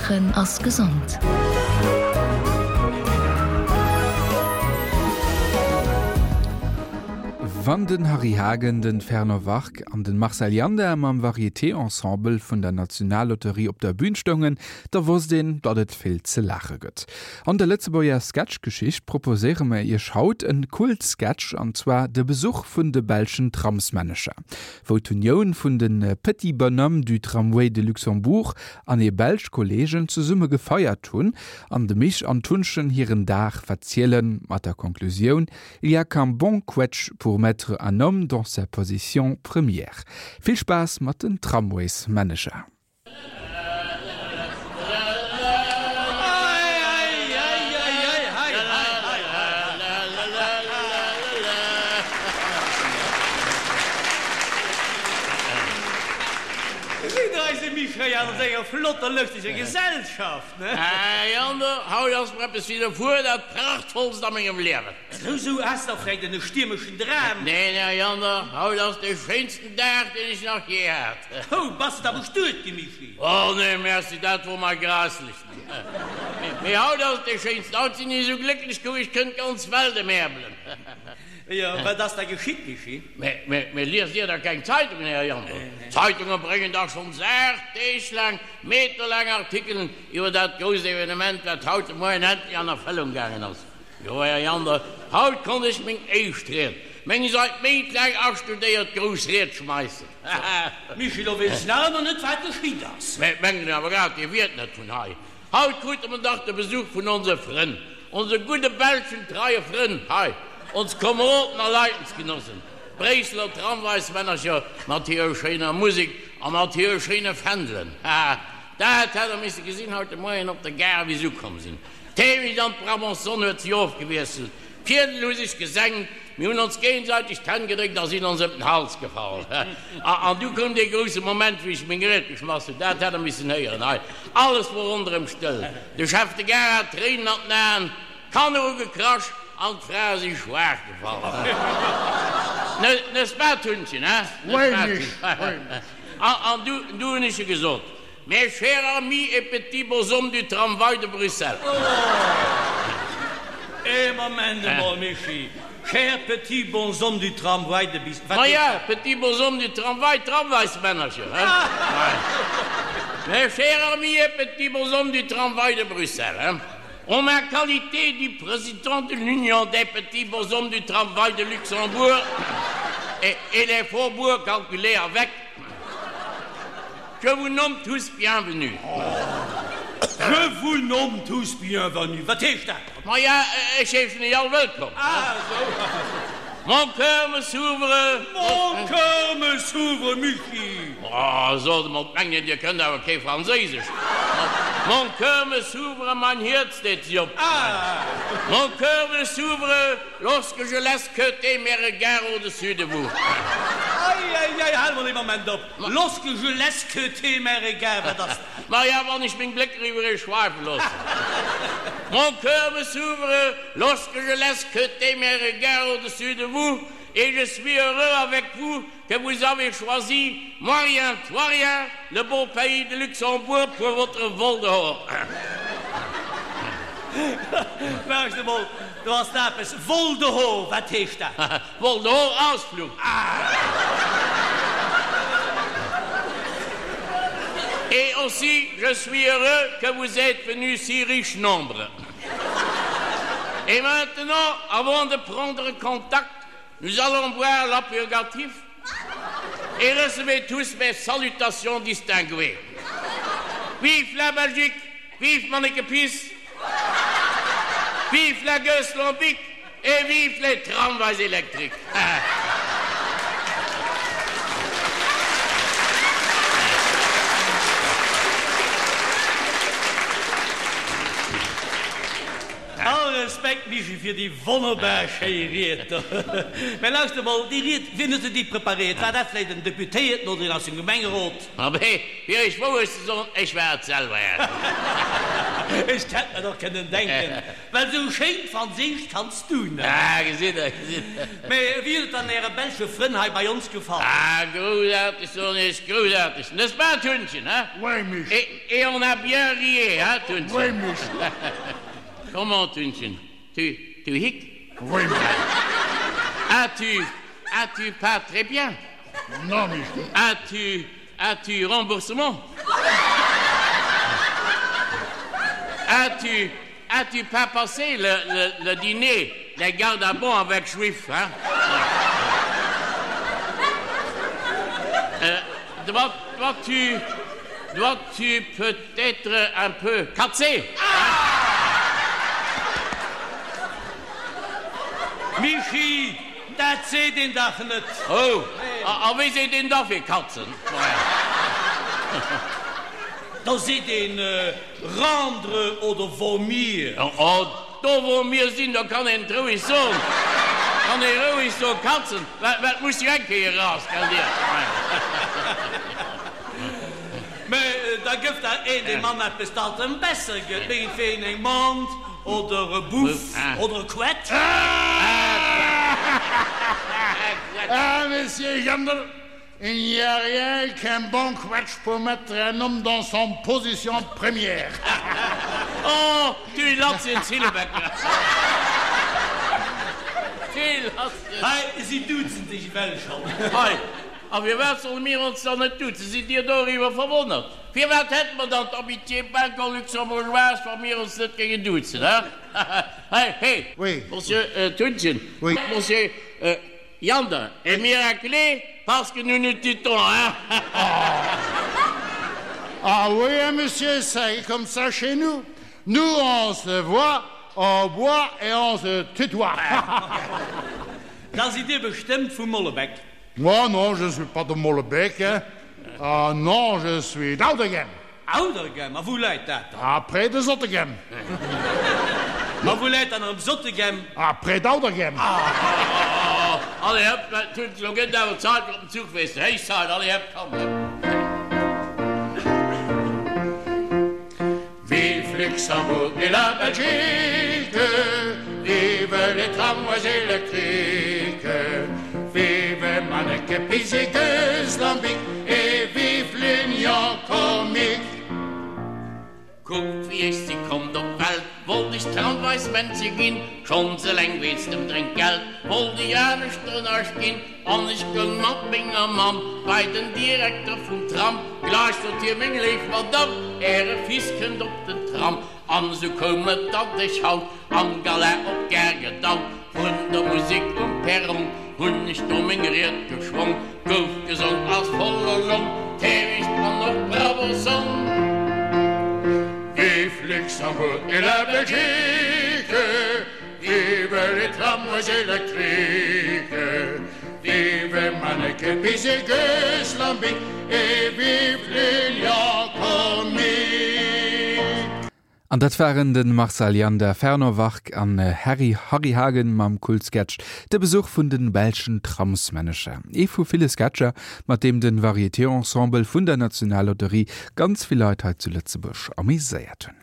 Laachen ass gesond. Wann den Harry Hagen, den Fernand Wark an den Marcel Janda mam Varieté-Ensemble vun der Nationallotterie op der Bühn stoungen, da wosst een, datt et vill ze laache gëtt. An der Lëtzebuerger Sketchgeschicht proposéiere mer iech haut en Kult-Sketch, an zwar de Besuch vun de belschen Tramsmännecher. Wou d'Unioun vun de Petits Bonhommes du Tramway de Luxembourg an hir belsch Kollegen zesumme gefeiert hunn an de Mich an d'Hunnchen hiren Dag verzielen, mat der Konklusioun, Il y a qu'un bon quetsch pour mettre un homme dans sa position première. Vill Spaass mat den Tramwaysmännecher. Sidd eise Michel an senger flotter lëschteger Gesellschaft, ne? Här Jander, haut ass mer eppes widderfuer, dat prachtvollst a mengem Liewen. Sou, sou, has der vläicht en stiermeschen Dram? Neen, Här Jander, haut ass de schéinsten Dag, deen ech nach jee hat. Hou, bass de da bestuet gi, Michi? Oh nee, merci, dat wor mer grausslech. Mee haut ass et dee schéinsten, haut sinn ech esou glécklech, kuck, ech kënnt d'ganz Welt emäerbelen. Jo, wat ass da geschitt, Michi? Mee, mee liest Dir da keng Zeitungen, Här Jandl? D'Zeitunge bréngen dach schonns 8 Deeg laang meterlaang Artikelen iwwer dat grousst Evenement, wat haut de Moien endlech an Erfëllung gaangen ass. Jo, Här Jander, haut konnt ech meng éischt Ried, meng seit Méint laang astudéiert grouss Ried schmeissen. Michi, lo weess ech nach ëmmer net, wat geschitt ass. Mä mengen awer grad, Dir wiert net vun hei. Haut krute mer dach de Besuch vun onse Frënn, onse gudde belschen treie Frënn hei, ons Komeroden a Leidensgenossen, d'Bréisseler Tramwaismännercher mat hirer schéiner Musek a mat hire schéine Fändelen. Haha, dat hätt Der misse gesinn haut de Moien op der Gare, wéi s'ukomm sinn. D'Heemecht an d'Brabançonne huet sech ofgewiesselt, d'Fiedel hu sech gesenkt, mir hunn ons géigesäiteg d'Hänn gedréckt a sinn ons ëm den Hals gefall. An du koum dee grousse Moment, wéi ech meng Ried geschmass hunn. Dat hätt Der missen héieren hei! Alles wor ronderëm stëll, de Chef de Gare hat Tréinen an den Aen, d'Kanner hu gekrasch an d'Frae si schwaach gefall. N'est-ce pas, Tunnchen, hein? N'est-ce pas, Tunnchen? An du hunn ech gesot, Mes chers amis et petits bonshommes du tramway de Bruxelles. Oh! Ee Moment emol, Mischii. Chers petits bonshommes du tramway de Bis-, wat Ma ja, petits bonshommes du tramway, Tramwaysmännercher, hein? Mes chers amis et petits bonshommes du tramway de Bruxelles, hein? En ma qualité du président de l'Union des petits bonshommes du tramway de Luxembourg et, et des faubourgs calculés avec, Je vous nomme tous bienvenus. Je vous nomme tous bienvenus. Wat heescht dat? Maja, ech heeschen iech all wëllkomm. Ah, esou. Mon cœur me s'ouvre. Mon cœur me s'ouvre, Michi. Oh, sot emol, d'mengen, Dir kënnt awer kee Franséisesch. Mon cœur me s'ouvre, mein Hierz deet sech op. Ah. Mon cœur me s'ouvre. Lorsque je laisse queuter mes regards au-dessus de vous. Ei, ei, ei, hal mol ee Moment op. Lorsque je laisse queuter mes regards, wat ass dat? Maja, wann ech meng Blécker iwwer iech schweife loossen. Mon cœur me s'ouvre lorsque je laisse queuter mes regards au-dessus de vous et je suis heureux avec vous que vous avez choisi, moi rien, toi rien, le beau pays de Luxembourg pour votre vol dehors. Lauscht emol, do ass da eppes. Vol dehors, wat heescht dat? Vol dehors, Ausflug. Et aussi, je suis heureux que vous êtes venus si riche nombre. Et maintenant, avant de prendre contact, Nous allons boire l'apurgatif et recevez tous mes salutations distinguées. Vive la Belgique, vive Manneke Pis, vive la Gueuse Lambic et vive les tramways électriques. All Respekt Mischii fir déi wonnerbar schéi Ried do. Mä lauschter emol, déi Ried, wien huet se déi preparéiert? War dat vläicht en Deputéierten oder een aus dem Gemengerot? Abee, fir Iech d'Wourecht ze soen, ech war et selwer. Ech hätt mer dach kënnen denken, well sou schéin Franséisch kanns du net. Ah, gesitt Der, gesitt Der. Mä wéi huet et dann Äre belsche Frënn hei bei ons gefall? Ah, groussaarteg, soen ech, groussaarteg, n'est-ce pas, Tunnchen, hein? Oui, Mich. Et, et on a bien rié, hein, Tunnchen? Oui, Mich. Comment, Tunnchen, tu, tu hic? Oui, Mich. As-tu, as-tu pas très bien? Non, Mich. As-tu, as-tu remboursement? As-tu, as-tu pas passé le, le, le dîner des gardes à bon avec juif, hein? Euh, dois, dois-tu, dois-tu peut-être un peu katzer? Michi, dat seet een dach net! Oh, a wéi seet een da fir katzen? Da seet een rendre oder vomir. Oh, do wou mir sinn, do kann een et roueg soen. Kann ee roueg soen, katzen, well et muss jo eng Kéier eraus, gell dir? Mä da gëff der een dem Mann eppes, dat em besser gëtt, mengentwegen eng Mant oder e Buff oder e Quetsch. Ah, Monsieur Jandl, il n'y a rien qu'un bon quetsch pour mettre un homme dans son position première. Oh, tu latz en Zillebecker. Tu latz en. Hei, si duzen sech ewell schonn. Hei, A firwat solle mir ons dann net duzen? Sidd Dir doriwwer verwonnert? Firwat hätte mer dann d'Amitié belgo-luxembourgeoise, wa mir ons net géingen duzen, he? Hei, he, Oui. Monsieur Thunchen, Oui. Monsieur Jander, est miraculé parce que nous nous tutons, hein? Ah oui, hein, monsieur, c'est comme ça chez nous. Nous, on se voit, on boit et on se tutoie. Da sidd Dir bestëmmt vu Mollebek. Moi, non, je suis pas de Molenbeek, hein. Ah non, je suis d'Auderghem. Auderghem? A wou läit dat dann? Ah, près de Zottegem. A wou läit dann erëm Zottegem? Ah, près d'Auderghem. Ah, allez hop, dat huet elo gëtt awer Zait fir op den Zuch, weess de. Héich Zait, allez hop, komm, hop. Vive Luxembourg et la Belgique, vive les tramways électriques, vive Manneke Pis et Lambic et vive l'Union comique. Kuckt wéi ech si konnt op d'Welt, wollt ech Tramwaysmännche ginn, schonns eleng wéinst dem Drénkgeld wollt ech anescht ënnersch ginn, an ech goung mat menger Mamm bei den Direkter vum Tram, gleich sot hie, Meng léif Madamm, äre Fils kënnt op den Tram. An esou koum et, datt ech haut am Gala op d'Gare gedaut, vrun der Musek um Perron hunn ech do meng Ried geschwong, gouf gesong aus voller Long, Täwicht an och Bravo Song. Vive Luxembourg et la Belgique, vive les tramways électriques, vive Manneken Pis et Gueuse Lambic et vive l'Union comique. An dat waren de Marcel Janda, Fernand Wark an Harry Harry Hagen mam Kultsketch De Besuch vun den belschen Tramsmännecher. Ee vu ville Sketcher, mat deem de Varieté-Ensemble vun der Nationallotterie ganz vill Leit hei zu Lëtzebuerg ameséiert hunn.